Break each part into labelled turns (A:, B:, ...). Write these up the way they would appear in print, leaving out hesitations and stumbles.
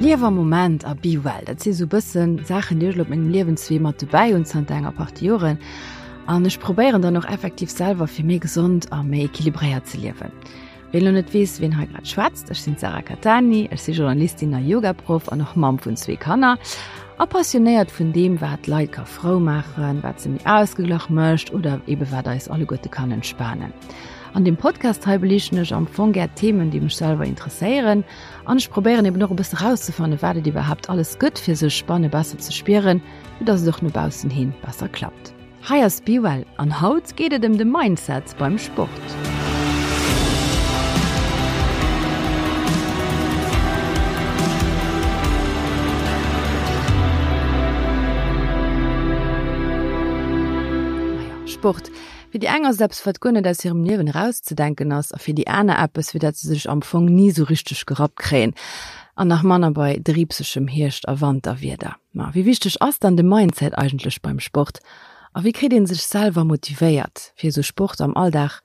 A: Liew am Moment a be well, dat si sou bëssen Saachen, déi ech elo op mengem Liewenswee mat dobäi hunn zanter enger Partie Joren. An ech probéieren dann och effektiv selwer fir méi gesond a méi equilibréiert ze liewen. Ween elo net weess, ween hei grad schwätzt, ech sinn d'Sarah Cattani, ech si Journalistin a Yogaproff an och Mamm vun zwee Kanner a passionéiert vun deem, wat d'Leit ka frou maachen, wat se méi ausgeglach mécht oder ebe wat eis alleguerte kann entspanen. An deem Podcast hei beliichten ech am Fong gär Themen, déi mech selwer interesséieren an ech probéieren eben och e bësse rauszefannen, wat et iwwerhaapt alles gëtt, fir sech banne besser ze spieren, fir dass et och no baussen hin besser klappt. Hei ass Be Well an haut geet et ëm de Mindset beim Sport. Sport, Fir déi eng ass et eppes, wat guer net aus hirem Liewen erauszedenken ass, a fir déi aner eppes, fir dat se sech am Fong ni sou richteg gerappt kréien, an nach manner bei driibsegem Hierscht a Wanterwieder. Ma wéi wichteg ass dann de Mindset eigentlech beim Sport? A wéi kritt ee sech selwer motivéiert, fir esou Sport am Alldag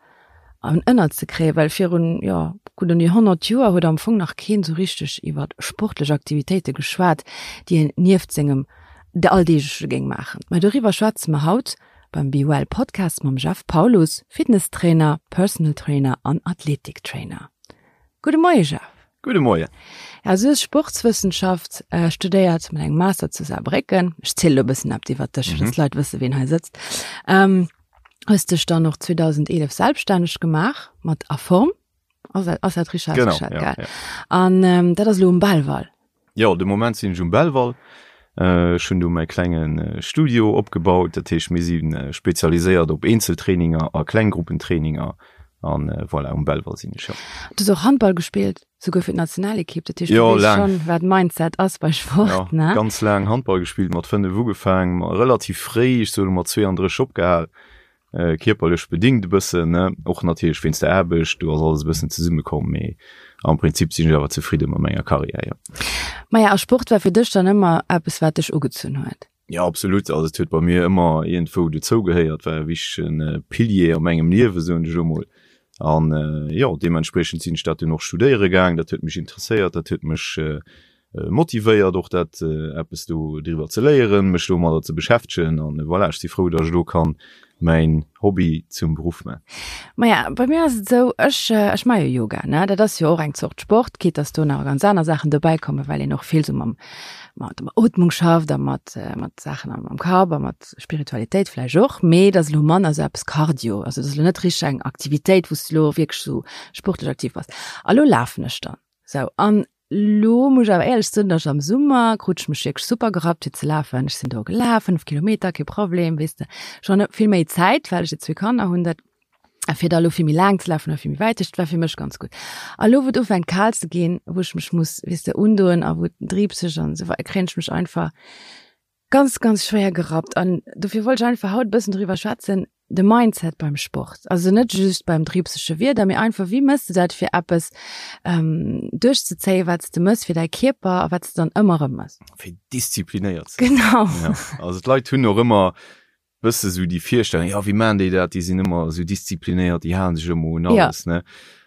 A: an ënner ze kréien? Well virun, jo, gutt un déi 100 Joer huet am Fong nach keen esou richteg iwwer sportlech Aktivitéite geschwat, déi een nieft sengem Alldeegleche géing maachen. Mä doriwwer schwätze mer haut Beim Be Well Podcast mam Jeff Paulus, Fitnesstrainer, Personal Trainer an Athletiktrainer. Gudde Moie Jeff.
B: Gudde Moien.
A: Ja, du hues Sportswëssenschaft studéiert mat engem Master zu Saarbrécken. Ech zielen elo e bëssen eppes iwwert dech, fir dass d'Leit wësse ween hei sëtzt. Hues dech dann och 2011 selbststänneg gemaach mat A Form. Ass dat, ass dat richtig
B: Genau,
A: ausgeschat,
B: ja,
A: gell?
B: ja.
A: An ähm, dat ass elo um Belval.
B: Jo, de Moment sinn ech um Belval. Äh, ech hunn do mäi klengen äh, Studio opgebaut. Dat heescht, mir si äh, spezialiséiert op Eenzeltraininger a Klenggruppentraininger. An äh, voilà, um Belval sinn ech, ja.
A: Du hues och Handball gespillt, souguer fir d'Nationalekipp. Dat heescht, du
B: Jo,
A: weess
B: laang.
A: schonn, wat Mindset ass bei Sport,
B: Ja,
A: ne?
B: ganz laang Handball gespillt, mat 5 ugefaang, ma relativ fréi, ech soe mat 32 opgehal. Kierperlech bedingt e bëssen, ne, och natierlech wéinst der Aarbecht, do ass alles e bëssen zesummekomm, mee am Prinzip sinn ech awer zefridde mat menger Karriär, jo.
A: Maja, a Sport war fir dech dann ëmmer eppes, wat dech ugezunn huet?
B: Jo, absolut, also et huet bei mir ëmmer iergendwou dozou gehéiert, war e wichtege Pilier a mengem Liewe, soen ech elo mol. An jo, deementspriechend sinn ech dat dunn och studéiere gaang, dat huet mech interesséiert, dat huet mech motivéiert och dat eppes do driwwer ze léieren, mech domadder ze beschäftegen an voilà, ech si frou, datt ech elo kann mäin Hobby zum Beruff man.
A: Maja, bei mir ass et esou, ech ech maache jo Yoga, ne, dat ass jo och eng Zort Sport, quitte datt do nach ganz aner Saachen dobäi kommen, well een och vill esou mam mat der Ootmung schafft a mat mat Saachen am am Kapp a mat Spiritualitéit vläicht och, mee et ass elo manner esou eppes Cardio, also et ass elo net richteg eng Aktivitéit, wou s de elo wierklech esou sportlech aktiv bass. A lo lafen ech dann esou an Lo muss ech awer éierlech soen, dass ech am Summer krut ech mech wierklech super gerappt fir ze lafen. Ech sinn do gelaf, 5 Kilometer, kee Problem, weess de. Ech hunn vill méi Zäit, well ech jo zwee Kanner hunn, dat fir da lo vill méi laang ze lafen oder vill méi wäit. Dat war fir mech ganz gutt. A lo wou et ufänkt kal ze ginn, wou ech mech muss, weess de, undoen a wou et driibseg an esou weider, kréien ech mech einfach ganz, ganz schwéier gerappt. An dofir wollt ech einfach haut e bëssen driwwer schwätzen, de Mindset beim Sport. Also net just beim driibsege Wieder, mee einfach, wéi mëss de dat, fir eppes duerchzezéien, wat s de mëss fir däi Kierper a wat s de dann ëmmer erëm mëss.
B: Fir disziplinéiert ze sinn.
A: Genau.
B: Ja, also d'Leit hunn och ëmmer bësse sou déi Virstellung, jo, wéi maachen déi dat, déi sinn ëmmer esou disziplinéiert, déi halen sech ëmmer un alles, ne.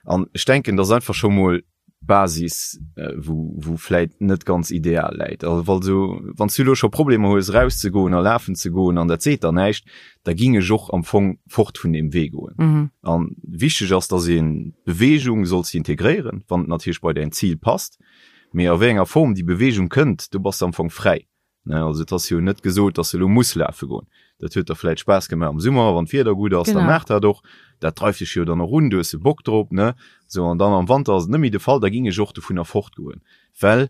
B: An ech denken, dass einfach scho mol Basis wou wou vläit net ganz ideal läit. Also wa sou wann s du elo scho Problemer hues erauszegoen a lafen ze goen an dat seet der näischt, da ging ech och am Fong fort vun deem Wee goen.
A: Mhm.
B: An wichteg ass, dass een d'Beweegung solls de integréieren, wann et natierlech bei däin Zil passt, mee a wéi enger Form déi Beweegung kënnt, do bass de am Fong fräi. Ne, also et ass jo net gesot, dass de elo muss lafe goen. Dat huet der vläit Spaass gemaach am Summer, wann d'Wieder gutt ass, da maach dat och. Dat dreift dech jo dann och un, du hues e Bock drop, ne? Sou, an dann am Wanter ass et net méi de Fall, da ging ech och dovunner fortgoen. Well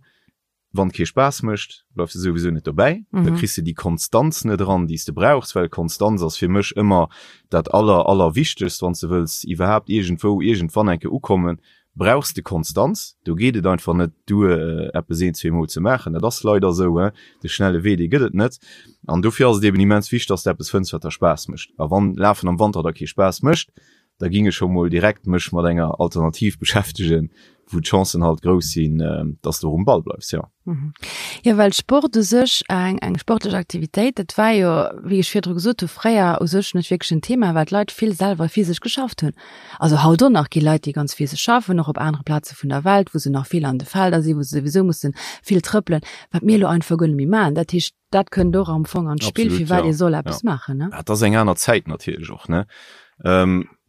B: wann et kee Spaass mécht, bleifs de souwisou net dobäi, da kriss de déi Konstanz net eran, déi s de brauchs, well Konstanz ass fir mech ëmmer dat aller, allerwichtegst, wann s de wëlls iwwerhaapt iergendwou iergendwann eng Kéier ukommen, brauchs de Konstanz. Do geet et einfach net duer, eppes een, zweemol ze maachen. Dat ass leider esou, he. De schnelle Wee, dee gëtt et net. An dofir ass et eben immens wichteg, dass de eppes fënns, wat der Spaass mécht. A wann Lafen am Wanter der kee Spaass mécht, Da ging ech scho mol direkt mech mat enger Alternativ beschäftegen, wou d'Chancen halt grouss sinn, dass de och um Ball bleifs, jo.
A: Jo, well Sport u sech, eng eng sportlech Aktivitéit, dat war jo, wéi ech virdru gesot hu, fréier u sech net wierklech en Thema, well d'Leit vill selwer physesch geschafft hunn. Also haut och nach gi Leit, déi ganz physesch schaffen, och op anere Plaze vun der Welt, wou se nach vill an de Felder sinn, wou se souwisou musse vill trëppelen, wat mir elo einfach guer net méi maachen. Dat heescht, dat kënnt och am Fong an d'Spill, firwat ee soll eppes maachen, ne?
B: Dat ass eng aner Zäit natierlech och, ne?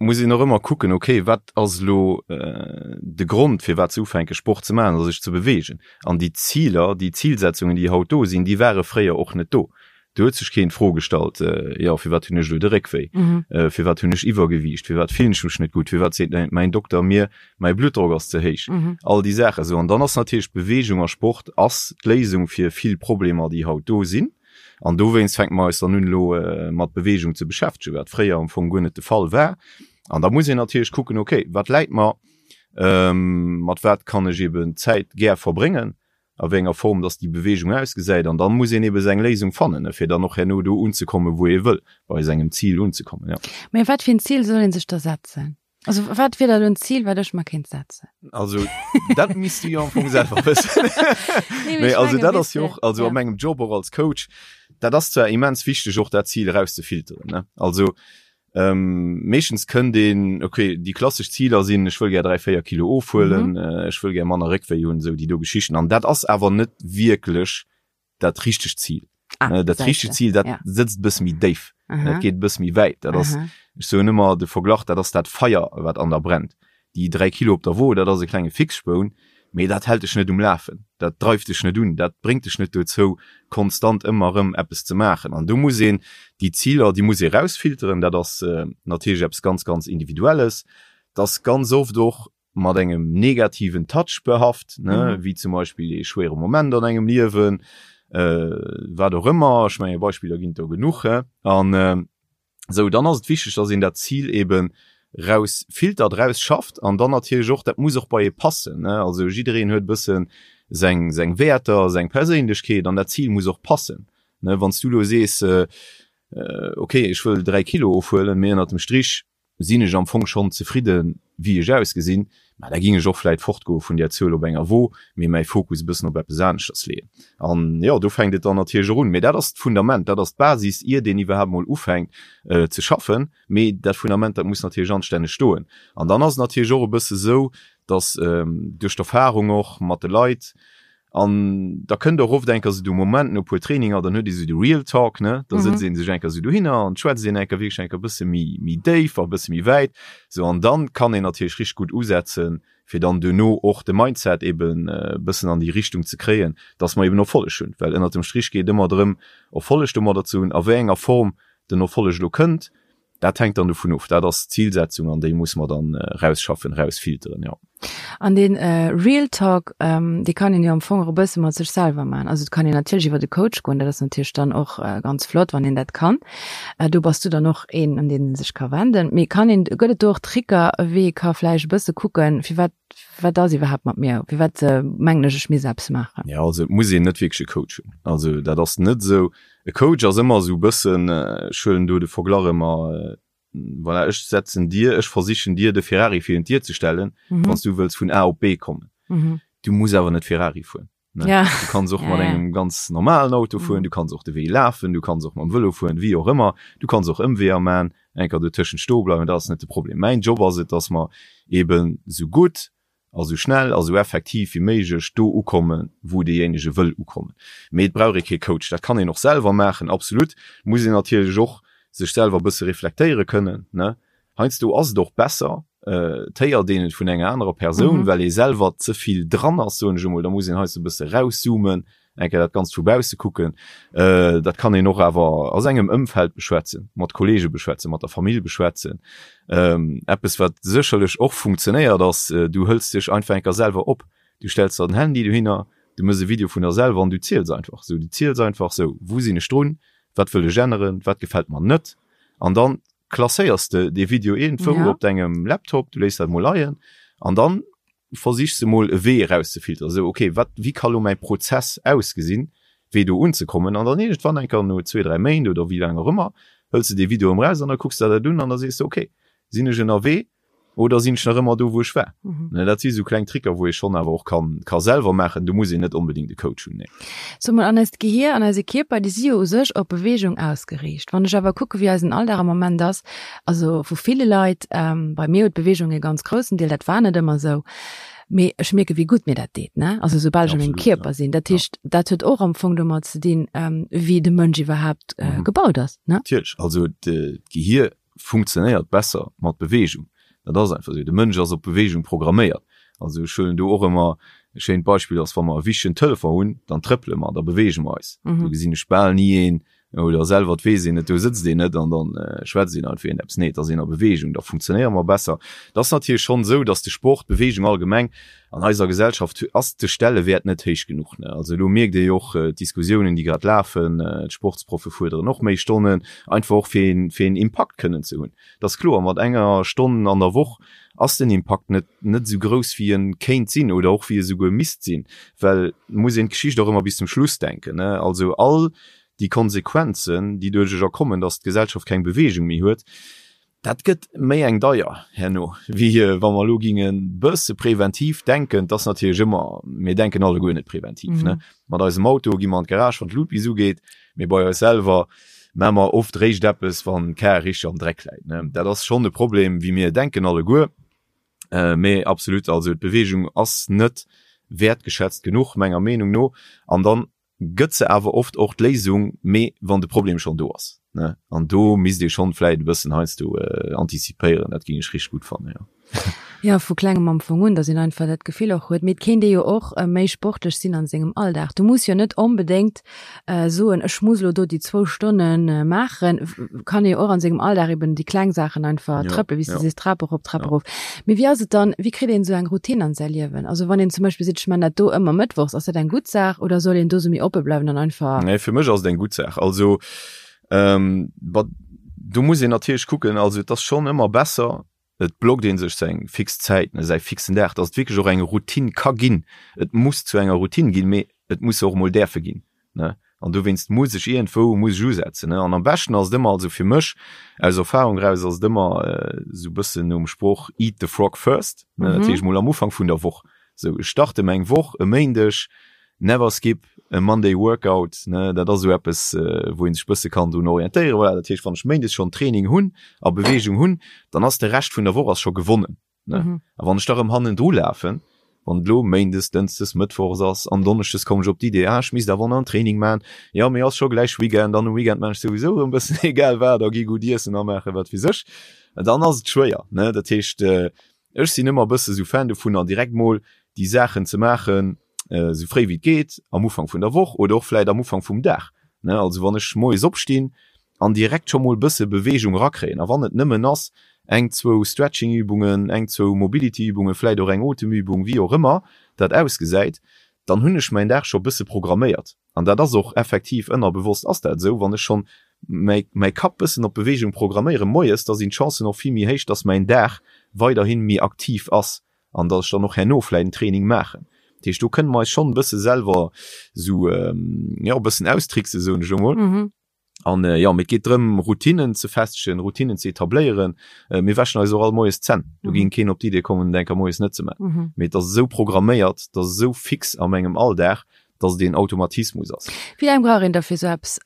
B: Muss een och ëmmer kucken, okay, wat ass elo de Grond, firwat se ufänke Sport ze maachen oder sech ze beweegen? An déi Ziler, déi Zilsetzungen, déi haut do sinn, déi ware fréier och net do. Do huet sech keen d'Fro gestallt, jo, firwat hunn ech elo de Réckwéi? Firwat hunn ech Iwwergewiicht? Firwat fillen ech mech net gutt? Firwat seet mäin Dokter mir, mäi Bluttdrock ass ze héich? All déi Saachen esou. An dann ass natierlech Beweegung a Sport ass d'Léisung fir vill Problemer, déi haut do sinn. An dowéinst fänke mer eis dann un, elo mat Beweegung ze beschäftegen, wat fréier am Fong guer net de Fall war. An da muss een natierlech kucken, okay, wat läit mer? Mat wat kann ech eben Zäit gär verbréngen? a wéi enger Form dass déi Beweegung ausgesäit an dann muss een ebe seng Léisung fannen, fir dann och herno do unzekommen, wou ee wëll, bei sengem Zil unzekommen, jo.
A: Mä wat fir en Zil soll ee sech da setzen? Also wat wier da elo en Zil, wat ech mer kéint setzen?
B: Also dat misst du jo am Fong selwer wëssen. Nee, mee also dat ass jo och, also a mengem Job och als Coach, dat ass zwar immens wichteg och dat Zil erauszefilteren, ne, also Meeschtens kënnt een, ok, déi klassesch Ziler sinn, ech wëll gär 3, 4 Kilo ofhuelen, ech wëll gär manner Réckwéi hunn, esou déi do Geschichten. An dat ass awer net wierklech dat richtegt Zil. Ah, dat richtegt Zil, dat sëtzt e bësse méi déif, dat geet e bësse méi wäit. Dat ass, ech soen ëmmer de Verglach, dat ass dat Feier, wat an der brennt. Déi 3 Kilo op der Wo, dat ass e klenge Fixspoun, mee dat hält dech net um Lafen, dat dreift dech net un, dat bréngt dech net dozou, konstant ëmmer erëm eppes ze maachen. An do muss een déi Ziler, déi muss ee rausfilteren. Dat ass natierlech eppes ganz, ganz Individuelles. Dat ass ganz oft och mat engem negativen Touch behaft, ne, wéi zum Beispill ee schwéiere Moment an engem Liewen, wat och ëmmer. Ech menge Beispiller ginn et do genuch. An Sou, dann ass et wichteg, dass een dat Zil eben raus filtert, raus schafft an dann natierlech och, dat muss och bei ee passen, ne. Also jiddereen huet e bësse seng, seng Wäerter, seng Perséinlechkeet an dat Zil muss och passen, ne. Wann s du elo sees, okay, ech wëll 3 Kilo ofhuelen, mee ënnert dem Strich sinn ech am Fong schonn zefridden, wéi ech ausgesinn, mä da géing ech och vläit fortgoe vun där Zuel op enger Wo, mee mäi Fokus e bëssen op eppes aneschters leeën. An jo, do fänkt et dann natierlech och un. Mee dat ass d'Fundament, dat ass d'Basis, iert een iwwerhaapt mol ufänkt ze schaffen. Mee dat Fundament, dat muss natierlech anstänneg stoen. An dann ass et natierlech och e bësse sou, datt duerch d'Erfarung och mat de Leit, An da kënnt och oft eng Kéier esou de Moment no e puer Traininger, dann huet ee sou de Real Talk, ne? Da sëtzt ee sech eng Kéier esou dohinner an schwätzt een eng Kéier wierklech eng Kéier e bësse méi, méi déif a e bësse méi wäit. Sou, an dann kann een natierlech richteg gutt usetzen, fir dann duerno och de Mindset eben e bëssen an déi Richtung ze kréien, dass mer eben Erfolleg hunn. Well ënnert dem Strich geet et ëmmer drëm, Erfolleg domadder ze hunn. A wéi enger Form den Erfolleg elo kënnt, Dat hänkt dann dovun of. Dat ass d'Zilsetzung an déi muss mer dann rausschaffen, rausfilteren, jo.
A: An dee Real Talk, dee kann een jo am Fong och e bësse mat sech selwer maachen. Also et kann een natierlech iwwer de Coach goen, dat ass natierlech dann och ganz flott, wann een dat kann. Do bass du dann och een, un deen ee sech ka wenden. Mee kann een, gëtt et do och Tricker, wéi ee ka vläicht e bësse kucken, firwat, wat ass iwwerhaapt mat mir, firwat mengen ech, ech misst eppes maachen?
B: Jo, also et muss een net wierklech e Coach hunn. Also dat ass net esou. E Coach ass ëmmer esou e bëssen, ech huelen do de Verglach ëmmer, voilà, ech setzen dir, ech versichen dir de Ferrari virun d'Dier ze stellen, wann s du wëlls vun A op B kommen. Du muss awer net Ferrari fueren. Ne?
A: Ja.
B: Du kanns och
A: ja,
B: mat
A: ja.
B: engem ganz normalen Auto fueren, mhm. du kanns och de Wee lafen, du kanns och mam Vëlo fueren, wéi och ëmmer. Du kanns och Ëmweeër man, enker do tëschent stoe bleiwen, dat ass net de Problem. Mäin Job ass et, dass mer eben sou gutt a sou schnell a sou effektiv wéi méiglech do ukommen, wou deejéinege wëll ukommen. Mee et brauch ee kee Coach, dat kann een och selwer maachen, absolut. Muss een natierlech och sech selwer e bësse reflektéiere kënnen, ne? Heiansdo ass et och besser, et héiert een et vun enger anerer Persoun, well ee selwer ze vill dran ass, soen ech emol. Da muss een heiansdo e bësse rauszoomen, eng Kéier dat Ganzt vu bausse kucken. Dat kann een och awer a sengem Ëmfeld beschwätzen, mat Kollege beschwätzen, mat der Famill beschwätzen. Eppes, wat sécherlech och funktionéiert, ass, du hëls dech einfach eng Kéier selwer op. Du stells der den Handy dohinner, du méchs e Video vun der selwer an du ziels einfach. Sou, du ziels einfach, sou, wou sinn ech drun, wat wëll ech änneren, wat gefält mer net? An dann klasséiers de dee Video iergendwou ja. op dengem Laptop, du léiss dat mol leien an dann versichs de mol e Wee erauszefilteren. Sou, okay, wat, wéi ka lo mäi Prozess ausgesinn, wéi do unzekommen? An dann iergendwann enker no zwee, dräi Méint oder wéi laang och ëmmer, hëls de dee Video erëm raus an da kucks de der dat un an da sees de, okay, Sinn ech ënnerwee oder sinn ech nach ëmmer do, wou ech war? Mhm. Dat si sou kleng Tricker, wou ee schonn awer och kann, ka selwer maachen. Do muss een net onbedéngt e Coach hunn, nee.
A: So mol, an eist Gehier an eise Kierper, déi si jo u sech op Beweegung ausgeriicht. Wann ech awer kucke wéi eisen Alldag am Moment ass, also vu ville Leit, ähm, bei mir huet d'Beweegung e ganz groussen Deel, dat war net ëmmer esou, mee ech mierke wéi gutt mir dat deet, ne? Also soubal ech a mengem Kierper sinn. Dat heescht, dat huet och am Fong domat ze dinn, ähm, wéi de Mënsch iwwerhaapt äh, gebaut ass, ne?
B: Natierlech, also d'Gehier funktionéiert besser mat Beweegung. Dat ass einfach esou. De Mënsch ass op Beweegung programméiert. Also ech huelen do och ëmmer e schéint Beispill ass, wa mer e wichtegen Telefon hunn, dann trëppele mer, da beweege mer eis. Do gesinn ech bal ni een, oder selwer, et weess een et, do sëtzt een net an dann schwätzt een einfach iergendeppes. Nee, et ass een a Beweegung, da funktionéiere mer besser. Et ass natierlech schonn esou, datt de Sport, d'Beweegung allgemeng an eiser Gesellschaft ass de Stellewäert net héich genuch. Also elo mierkt ee jo och d'Diskussiounen, déi grad lafen, d'Sportsproffe fuerderen och méi Stonnen, einfach och fir een, fir een Impakt kënnen ze hunn. Et ass kloer, mat enger Stonn an der Woch ass den Impakt net, net esou grouss wéi en kéint sinn oder och wéi e souguer misst sinn, well et muss een d'Geschicht och ëmmer bis zum Schluss denken. Also all déi Konsequenzen, déi duerch erkommen, datt d'Gesellschaft keng Beweegung méi huet, Dat gëtt méi eng deier herno, wéi wa mer elo ginge bësse preventiv denken. Et ass natierlech ëmmer, mir denken alleguer net preventiv, ne? Mat eisem Auto gi mer an d'Garage, wann d'Lut bis ugeet, mee bei eis selwer maache mer oft réischt eppes, wann d'Kar richteg am Dreck läit, ne? Dat ass schonn e Problem, wéi mir denken alleguer. Mee absolut, also d'Beweegung ass net wäertgeschätzt genuch, menger Meenung no. An dann gëtt se awer oft och d'Léisung, mee wann de Problem schonn do ass, ne? An do misst ee schonn vläit e bëssen heiansdo antizipéieren, dat géing ech richteg gutt fannen, jo.
A: Jo, vu klengem am Fong un, datt een einfach dat Gefill och huet. Mee et kéint ee jo och méi sportlech sinn an sengem Alldag. Du muss jo net onbedéngt soen, ech muss elo do déi zwou Stonne maachen. Kann ee jo och an sengem Alldag eben déi kleng Saachen einfach trëppelen, wéi s de sees, Trap erop, Trap erof. Mee wéi ass et dann, wéi kritt een esou eng Routine an säi Liewen? Also wann een zum Beispill seet, ech man dat do ëmmer mëttwochs, ass dat eng gutt Saach oder soll een do sou méi oppe bleiwen an einfach.
B: Nee, fir mech ass et eng gutt Saach. Also bah, do muss een natierlech kucken, also et ass schonn ëmmer besser, et blockt ee sech seng fix Zäit, ne, säi fixen Dag, dass et wierklech och eng Routine ka ginn. Et muss zu enger Routine ginn, mee et muss se och emol däerfe ginn, ne? An dowéinst muss ech iergendwou muss ech usetzen, ne? An am beschten ass et ëmmer, also fir mech aus Erfahrung eraus ass et ëmmer esou e bëssen nom Sproch eat the frog first, ne? Dat heescht mol am Ufank vun der Woch, sou ech starte meng Woch e Méindeg, never skip a Monday workout, ne? Dat ass esou eppes, wou ee sech bësse kann drun orientéieren. Voilà, dat heescht wann ech méindes schonn Training hunn a Beweegung hunn, dann ass de Rescht vun der Woch ass scho gewonnen. Ne? Mhm. A wann ech da rëm hannendru lafen, wann et lo Méindes, Dënschdes, Mëttwochs ass an Donneschdes kommen ech op d'Idee, ah, ech misst awer nach en Training man, jo, mee ass scho gläich Weekend an um Weekend man ech souwisou rëm bëssen egal wat a gi gutt iessen a maache wat weess ech, dann ass et schwéier, ne? Dat heescht, ech sinn ëmmer e bësse sou Fan dovunner, direkt mol déi Saachen ze maachen, esou fréi wéi et geet, am Ufank vun der Woch oder och vläit am Ufank vum Dag, ne? Also wann ech moies opstinn, an direkt scho mol bësse Beweegung rakréien. A wann et nëmmen ass, eng, zwou Stretching-Übungen, eng, zwou Mobility-Übungen, vläit och eng Otemübung, wéi och ëmmer dat ausgesäit, dann hunn ech mäin Dag scho bësse programméiert. An dat ass och effektiv, ënnerbewosst ass dat esou, wann ech schonn mäi, mäi Kapp bëssen op Beweegung programméiere moies, da sinn d'Chancen och vill méi héich, dass mäin Dag weiderhi méi aktiv ass an dass ech dann och herno vläit en Training maachen. Dat heescht, do kënne mer eis schonn e bësse selwer esou, jo, e bëssen austricksen, soen ech elo mol. An jo, mee et geet drëm, Routinen ze festegen, Routinen ze etabléieren. Mir wäschen eis och all moies d'Zänn. Do géing keen op d'Idee kommen, et eng Kéier moies net ze maachen. Mee et ass esou programméiert, et ass esou fix a mengem Alldag, dass et een Automatismus ass.
A: Wéi laang brauch een da fir esou eppes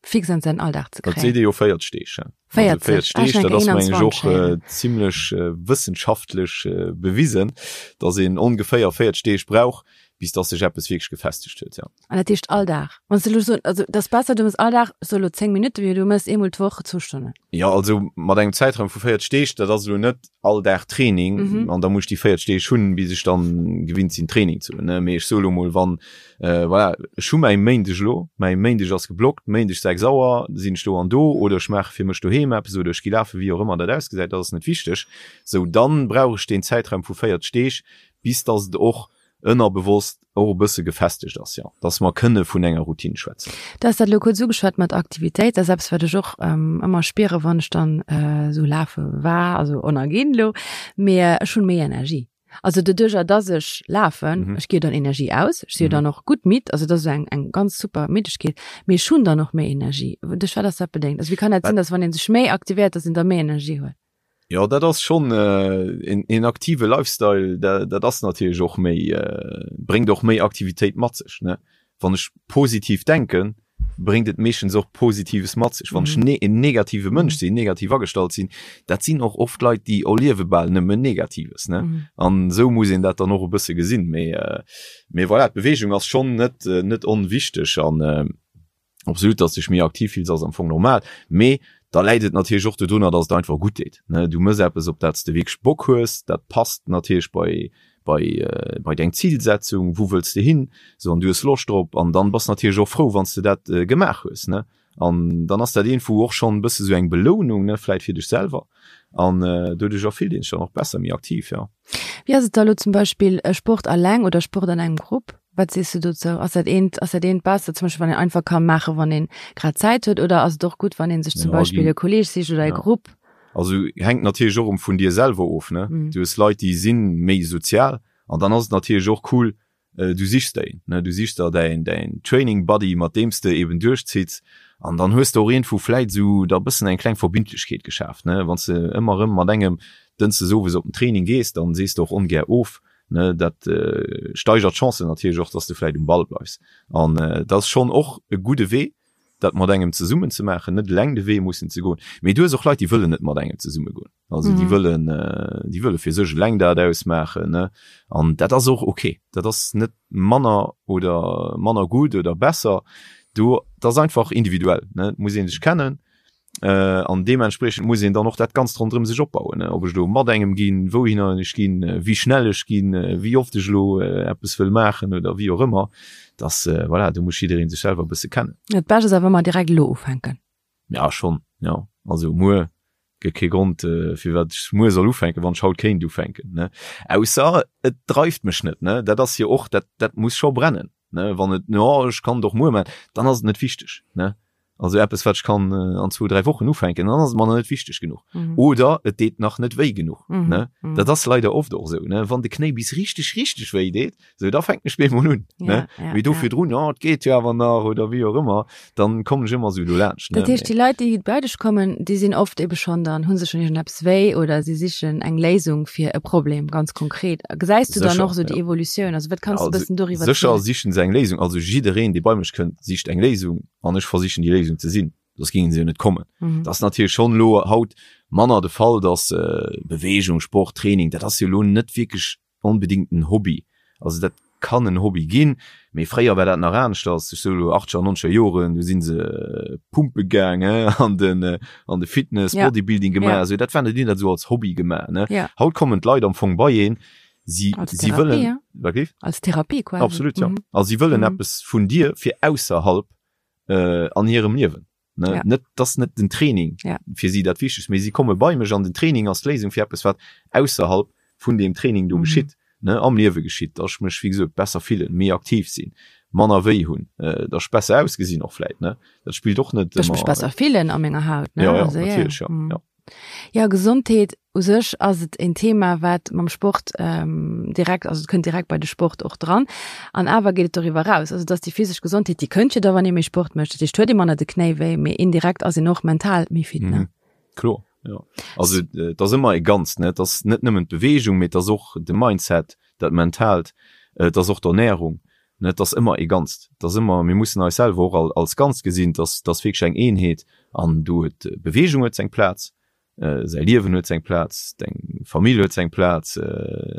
A: fix an säin Alldag ze
B: kréien? Dat seet ee jo 40 Deeg.
A: 40?
B: 40 Deeg, dat ass meng ech och zimlech wëssenschaftlech bewisen, dass een ongeféier 40 Deeg brauch, bis dass sech eppes wierklech gefestegt huet, jo.
A: An dat heescht all Dag? Wann s de elo soen, also dat ass besser, du mëss all Dag, so elo 10 Minutten, wéi du mëss eemol d'Woch zwou Stonnen.
B: Jo, also mat engem Zäitraum vu 40 Deeg, dat ass elo net all Dag Training mm -hmm. an da muss ech déi 40 Deeg hunn, bis ech dann gewinnt sinn Training ze hunn. Mee ech soe lo mol, wann äh, voilà, ech hu mäi Méindeg elo, mäi Méindeg ass geblockt, Méindeg 6 Auer sinn ech do an do oder ech maache fir mech doheem eppes oder ech gi lafen, wéi och ëmmer dat ausgesäit, dat ass net wichteg. Sou dann brauch ech deen Zäitraum vu 40 Deeg, bis dass et och ënnerbewosst och e bësse gefestegt ass, jo, dass mer kënne vun enger Routine schwätzen.
A: Du has dat elo kuerz ugeschwat mat Aktivitéit. Dat ass eppes, wat ech och ëmmer spiere wann ech dann esou lafe war, also on a ginn elo, mee ech hunn méi Energie. Also doduercher, dass ech lafen, ech gi jo dann Energie aus, ech si jo dann och gutt midd, also dat ass eng eng ganz super Middegkeet, mee ech hunn dann och méi Energie. Duerch wat ass dat bedéngt? Also wéi kann dat sinn, dass wann ee sech méi aktivéiert, dass een da méi Energie huet?
B: Jo, dat ass schonn een aktive Lifestyle, dat ass natierlech och méi, bréngt och méi Aktivitéit mat sech, ne. Wann ech positiv denken, bréngt et meeschtens och Positives mat sech. Wann ech en negative Mënsch sinn, negativ agestallt sinn, dat sinn och oft Leit, déi erliewe bal nëmmen Negatives, ne. An esou muss een dat dann och e bësse gesinn. Mee, mee voilà, d'Beweegung ass schonn net, net onwichteg an. Absolut, dass dech méi aktiv fills ass am Fong normal, mee da läit et natierlech och dodrunner, dass et einfach gutt deet, ne. Du mëss eppes op dat s de wierklech Bock hues, dat passt natierlech bei bei bei deng Zilsetzung, wou wëlls de hin, sou an du hues Loscht drop an dann bass natierlech och frou wann s de dat gemaach hues, ne. An dann ass dat iergendwou och schonn e bësse sou eng Belounung, ne, vläit fir dech selwer an doduercher fillt een sech dann och besser, méi aktiv, jo.
A: Wéi ass et da lo zum Beispill Sport alleng oder Sport an engem Grupp? Wat sees du dozou? Ass dat eent, ass dat eent besser, zum Beispill wann een einfach ka maachen, wann een grad Zäit huet, oder ass et och gutt, wann een sech zum
B: Ja,
A: Beispill
B: ginn,
A: e Kolleeg sicht oder e
B: ja.
A: Grupp?
B: Also hänkt natierlech och erëm vun dir selwer of, ne?
A: Mhm.
B: Du hues Leit, déi si méi sozial an dann ass et natierlech och cool, du sichs der een, ne? Du sichs der däin, däin Training Buddy, mat deem s de eben duerchzitts an dann hues de och iergendwou vläit esou da bëssen eng kleng Verbindlechkeet geschaaft, ne? Wann s de ëmmer erëm mat engem dënschdes owes op den Training gees, dann sees de och ongär of, Ne, dat steigert d'Chancen natierlech och, dass de vläit um Ball bleifs. An dat ass schonn och e gudde Wee, dat mat engem zesummen ze maachen, net eleng de Wee mussen ze goen. Mee du hues och Leit, déi wëllen net mat engem zesumme goen. Also déi wëllen, déi wëlle fir sech eleng dat ausmaachen, ne. An dat ass och ok. Dat ass net manner oder manner gutt oder besser. Do, dat ass einfach individuell, ne. Et muss ee sech kennen. An deementspriechend muss een dann och dat Ganzt ronderëm sech opbauen, ob ech elo mat engem ginn, wouhinner ech ginn, wéi schnell ech ginn, wéi oft ech elo eppes wëll maachen oder wéi och ëmmer. Dass, voilà, do muss jidderee sech selwer e bësse kennen.
A: Dat Bescht ass awer ëmmer direkt elo ufänken.
B: Ja, schonn, jo. Also muer gëtt kee Grond, firwat ech muer soll ufänken, wann ech haut kéint ufänken, ne. Ausser et dreift mech net, ne. Dat ass jo och, dat, dat muss scho brennen, ne. Wann et, jo, ech kann et och muer maachen, dann ass et net wichteg, ne. Also eppes wat ech kann an zwou, dräi Wochen ufänken, dann ass et mer nach net wichteg genuch. Mhm. Oder et deet nach net wéi genuch. Mhm. Ne? Mhm. Dat ass leider oft och esou, ne? Wann de Knéi bis richteg, richteg wéi deet, sou da fänken ech bemol un. Ja, ne? Ja, Mee do ja. virdrun, oh, et geet jo awer nach oder wéi och ëmmer, dann kommen ech ëmmer esou dolaanscht.
A: Dat heescht, déi Leit, déi bei dech kommen, déi sinn oft ebe schonn dann, hu se schonn iergendeppes wéi oder si sichen eng Léisung fir e Problem, ganz konkret. Gesäis du dann och esou déi Evolutioun? Also wat kanns du e bëssen doriwwer
B: zielen? Sécher sichen se eng Léisung. Also jiddereen, dee bei mech kënnt, sicht eng Léisung. an ech versichen déi Léisung ze sinn, soss géingen se jo net kommen. Mhm. Dat ass natierlech schonn elo haut manner de Fall, dass äh, Bewegung, Sport, Training, dat ass jo elo net wierklech onbedingt en Hobby. Also dat kann en Hobby ginn, mee fréier war dat nach aneschters. Ech soe lo achtzeger, nonzeger Joren, do si se äh, pumpe gaang, äh, an den, äh, an de Fitness,
A: Ja.
B: Bodybuilding gemaach.
A: Ja.
B: Also dat waren, déi hunn dat esou als Hobby gemaach, ne?
A: Ja.
B: Haut kommen d'Leit am Fong bei een, si,
A: Als
B: si
A: Therapie,
B: wëllen,
A: ja.
B: wat géif?
A: Als Therapie quasi.
B: Absolut, ja.
A: Mhm.
B: Also si wëllen
A: Mhm.
B: eppes vun dir fir ausserhalb äh, an hirem Liewen. Ne?
A: Ja.
B: Net, das net den Training
A: Ja.
B: fir si dat Wichtegst, mee si komme bei mech an den Training ass d'Léisung fir eppes, wat ausserhalb vun deem Training do
A: Mhm.
B: geschitt, ne, am Liewe geschitt, dass ech mech, wéi gesot, besser fillen, méi aktiv sinn, manner wéi hunn, äh, dass ech besser ausgesinn och vläit, ne? Dat spillt och net
A: Dass ech mech
B: ëmmer.
A: besser fillen a menger Haut, ne?
B: Ja, ja,
A: Also, ja, ja.
B: natierlech, ja,
A: Mhm.
B: ja.
A: Jo, Gesondheet u sech ass et een Thema, wat mam Sport direkt, also et kënnt direkt bei de Sport och dran. An awer geet et doriwwer eraus. Also et ass déi physesch Gesondheet, déi kënnt jo da, wann ee méi Sport mécht. Dat heescht, huet ee manner de Knéi wéi, mee indirekt ass een och mental méi fit, ne?
B: Mhm. Kloer, jo. Also et ass ëmmer e Ganzt, ne? Et ass net nëmmen d'Beweegung, mee et ass och de Mindset, dat Mentaalt, et ass och d'Ernärung, ne? Et ass ëmmer e Ganzt. Et ass ëmmer, mir mussen eis selwer och als Ganzt gesinn. Et ass, et ass wierklech eng Eenheet an do huet d'Beweegung huet seng Plaz, säi Liewen huet seng Plaz, deng Famill huet seng Plaz,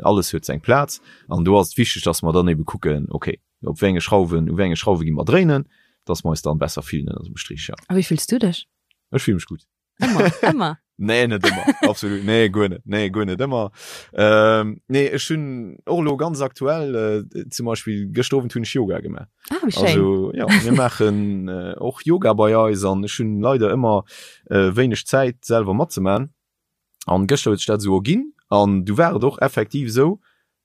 B: alles huet seng Plaz. An do ass et wichteg, dass mer dann ebe kucken, okay, op wéi enge Schrauwen, u wéi enge Schrauwe gi mer dréinen, dass mer eis dann besser fillen ënner dem Strich, ja.
A: A wéi fills du dech?
B: Ech fille mech gutt.
A: Ëmmer, ëmmer.
B: Nee, net ëmmer. Absolut. Nee, guer net. Nee, guer net ëmmer. Ähm, nee, ech hunn och elo ganz aktuell, äh, zum Beispill gëschter Owend hunn ech Yoga gemaach.
A: Ah, wéi schéin.
B: Also, ja, mir maachen äh, och Yoga bei eis an ech hunn leider ëmmer äh, wéineg Zäit selwer matzemaachen. An gëschter huet sech dat esou erginn an du war et och effektiv esou,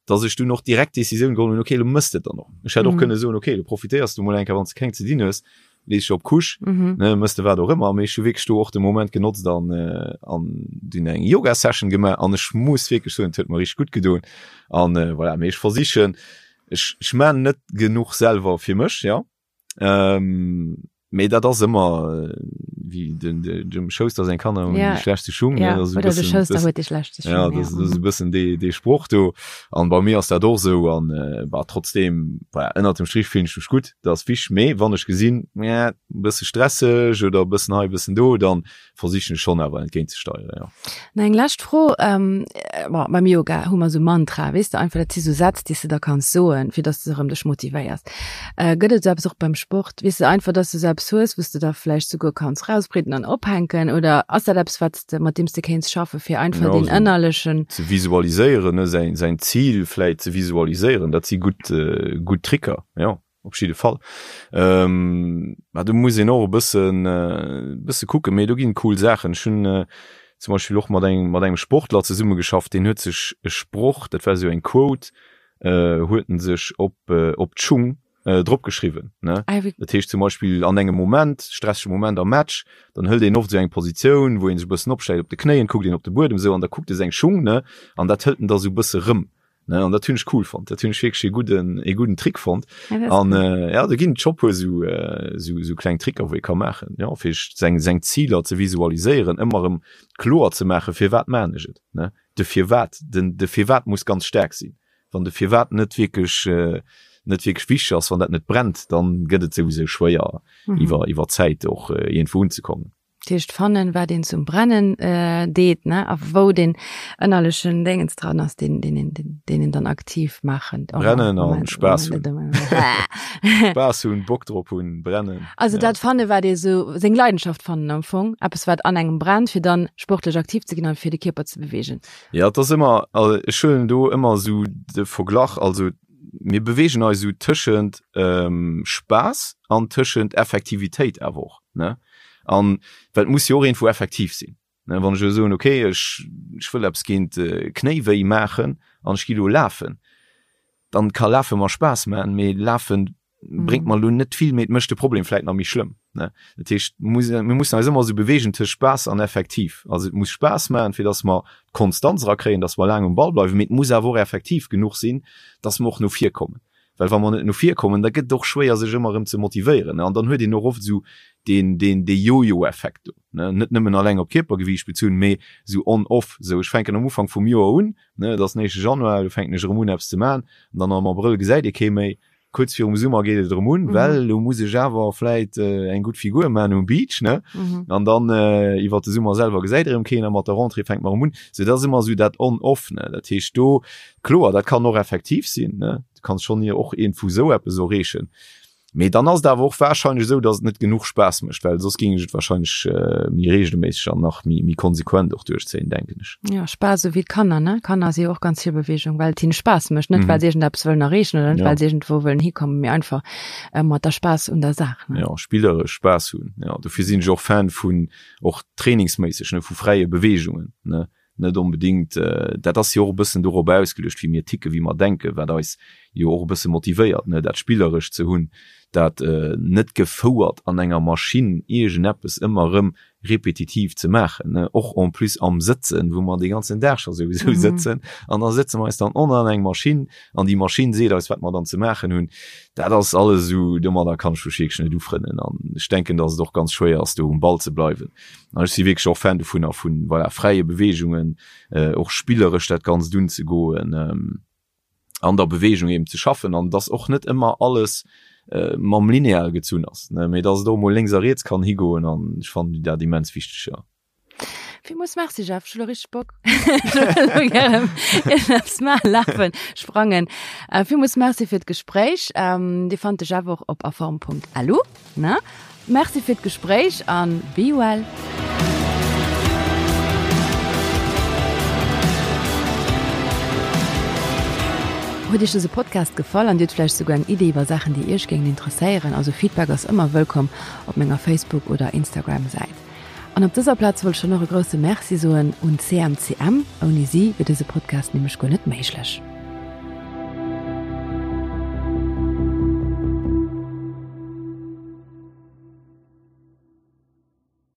B: dass ech dunn och direkt d'Decisioun geholl hunn, okay, lo mëss de et dann och. Ech hätt och mhm. kënne soen, okay, du profitéiers du mol eng Kéier, wann s de keng ze dinn hues, lees dech op d'Couche, mhm. ne, mëss de wat och ëmmer. Mee ech hu wierklech do och de Moment genotzt an, äh, an dunn eng Yoga-Session gemaach an ech muss wierklech soen, et huet mer richteg gutt gedoen. An äh, voilà, mee ech versichen, ech, ech maan net genuch selwer fir mech, ja. Ähm, mee dat ass ëmmer. Wéi den, den, dem Schouster seng Kanner hunn déi schlechtste Schung,
A: ne? Ja, oder de Schouster huet déi schlechtste
B: Schung. Ja, dat ass e bëssen dee, dee Sproch do. An bei mir ass dat och esou. An bah, trotzdem, voilà, ënnert dem Strich fillen ech mech gutt, dat ass wichteg. Mee wann ech gesinn, e bësse stresseg oder e bëssen hei, e bëssen do, dann versichen ech schonn awer entgéint ze steieren, jo.
A: Nach eng lescht Fro, bon, beim Yoga hu mer esou Mantra, weess de, einfach dat si sou Sätz, déi s de da kanns soen, fir dass de erëm dech motivéiers. Gëtt et esou eppes och beim Sport, weess de, einfach dass de esou eppes hues, wou s de da vläicht souguer kanns rauspritten an ophänken oder ass dat eppes, wat s de, mat deem s de kéints schaffen, fir einfach deen ënnerlechen.
B: Ze visualiséieren, ne, säin, säin Zil vläicht ze visualiséieren, dat si gutt, gutt Tricker, jo. Op jidde Fall. Ähm, ma do muss een och e bëssen, äh, bësse kucken, mee do ginn cool Saachen. Ech hunn äh, zum Beispill och mat engem, mat engem Sportler zesummegeschafft, deen huet sech e Sproch, dat war esou eng Quote, äh, huet en sech op, äh, op d'Schung äh, drop geschriwwen, ne? Ah, wéi. Dat heescht zum Beispill an engem Moment, stressege Moment am Match, dann hëlt een oft esou eng Positioun, wou een sech e bëssen opstellt op de Knéien, kuckt een op de Buedem esou an da kuckt e seng Schung, ne? An dat hëlt en da sou e bësse rëm. Ne, an dat hunn ech cool fonnt. Dat hunn ech wierklech e gudden, e gudden Trick fonnt. Ja, dat ass An cool. äh, ja, do ginn et scho puer sou, äh, sou, sou kleng Tricker, wou ee ka maachen, ja, fir seng, seng Ziler ze visualiséieren, ëmmer erëm kloer ze maachen, firwat maan ech et, ne? De Firwat, den, de Firwat muss ganz staark sinn. Wann de Firwat net wierklech, äh, net wierklech wichteg ass, wann dat net brennt, dann gëtt et souwisou schwéier, mhm. iwwer, iwwer Zäit och äh, iergendwou unzekommen.
A: Dat heescht fannen, wat een zum Brennen deet, ne, a wou deen ënnerlechen Déngens dran ass, deen, deen een, deen een dann aktiv maachen.
B: Brennen an Spaass hunn. Spaass hunn, Bock drop hunn, brennen.
A: Also dat fannen, wat ee sou, seng Leidenschaft fannen am Fong, eppes wat an engem brennt, fir dann sportlech aktiv ze ginn an fir de Kierper ze beweegen.
B: Ja, et ass ëmmer, also ech huelen do ëmmer sou de Verglach, also mir beweegen eis sou tëschent Spaass an tëschent Effektivitéit awer och, ne. An well et muss jo och iergendwou effektiv sinn. Ne, wann ech elo soen, okay, ech, ech wëll eppes géint Knéiwéi maachen an ech gi elo lafen, dann ka Lafe mer Spaass maachen, mee Lafe bréngt mer elo net vill, mee et mécht de Problem vläit nach méi schlëmm. Ne? Dat heescht, muss, mir mussen eis ëmmer esou beweegen tëscht Spaass an effektiv. Also et muss Spaass maachen, fir datt mer d'Konstanz erakréien, datt mer laang um Ball bleiwen, mee et muss awer och effektiv genuch sinn, datt mer och no vir kommen. Well wa mer net no vir kommen, da gëtt et och schwéier sech ëmmer erëm ze motivéieren. An dann huet een och oft esou deen, deen, dee Jojo-Effekt do, ne. Net nëmmen alleng op Kierpergewiicht bezunn, mee esou on-off, esou ech fänken am Ufank vum Joer un, ne, et ass den éischte Januar, elo fänken ech erëm un eppes ze maachen, an dann am Abrëll gesäit ee kee méi. Kuerz virum Summer geet et erëm un, well elo muss ech awer vläit eng gutt Figur maachen um Beach, ne. An dann iwwert de Summer selwer gesäit erëm keen a mat der Rentrée fänkt mer erëm un. Sou dat ass ëmmer esou dat on-off, ne. Dat heescht do, Kloer, dat kann och effektiv sinn, ne? Du kanns schonn hier och iergendwou esou eppes erreechen. Mee dann ass et awer och warscheinlech esou, datt et net genuch Spaass mécht, well soss géing ech et warscheinlech méi reegelméisseg an nach méi, méi konsequent och duerchzéien, denken ech.
A: Jo, Spaass, esou wéi d'Kanner, ne? Kanner si jo och ganz vill Beweegung, well et hinne Spaass mécht, net well se iergendeppes wëllen erreechen oder net well se iergendwou wëllen hikommen, mee einfach mat der Spaass un der Saach,
B: ne? Jo, spilleresch Spaass hunn, jo. Dofir sinn ech och Fan vun, och trainingsméisseg, ne, vu fräie Beweegungen, ne? net onbedéngt, dat ass jo och e bëssen dorop ausgeluecht, wéi mir ticken, wéi mer denken, wat eis jo och e bësse motivéiert, ne, dat Spillerescht ze hunn, dat net gefouert an enger Maschinn iergendeppes ëmmer erëm repetitiv ze maachen, ne, och en plus am Sëtzen, wou mer dee ganzen Dag scho souwisou sëtzen an da sëtze mer eis dann och nach an eng Maschinn an déi Maschinn seet eis, wat mer dann ze maachen hunn. Dat ass alles esou, domadder kann ech mech wierklech net ufrënnen an ech denken, datt et och ganz schwéier ass, do um Ball ze bleiwen. An ech si wierklech och Fan dovunner, vu voilà, fräie Beweegungen, och spilleresch dat Ganzt unzegoen, an der Beweegung eben ze schaffen an dass och net ëmmer alles mam Lineal gezunn ass, ne, mee dass et och mol lénks a riets kann higoen an ech fannen dat immens wichteg, jo.
A: Villmools Merci Jeff, ech hu lo richteg Bock elo gären iergendeppes maachen, lafen, sprangen. Villmools Merci fir d'Gespréich. Dir fannt de Jeff och op aform.lu. Ne? Merci fir d'Gespréich an be well! Huet Iech dëse Podcast gefall an Dir hutt vläicht souguer eng Idee iwwer Saachen déi Iech géingen interesséieren? Also Feedback ass ëmmer wëllkomm op menger Facebook oder Instagram Säit. An op dëser Plaz wollt ech dann och e grousse Merci soen un CMCM, ouni si wier dëse Podcast nämlech guer net méiglech.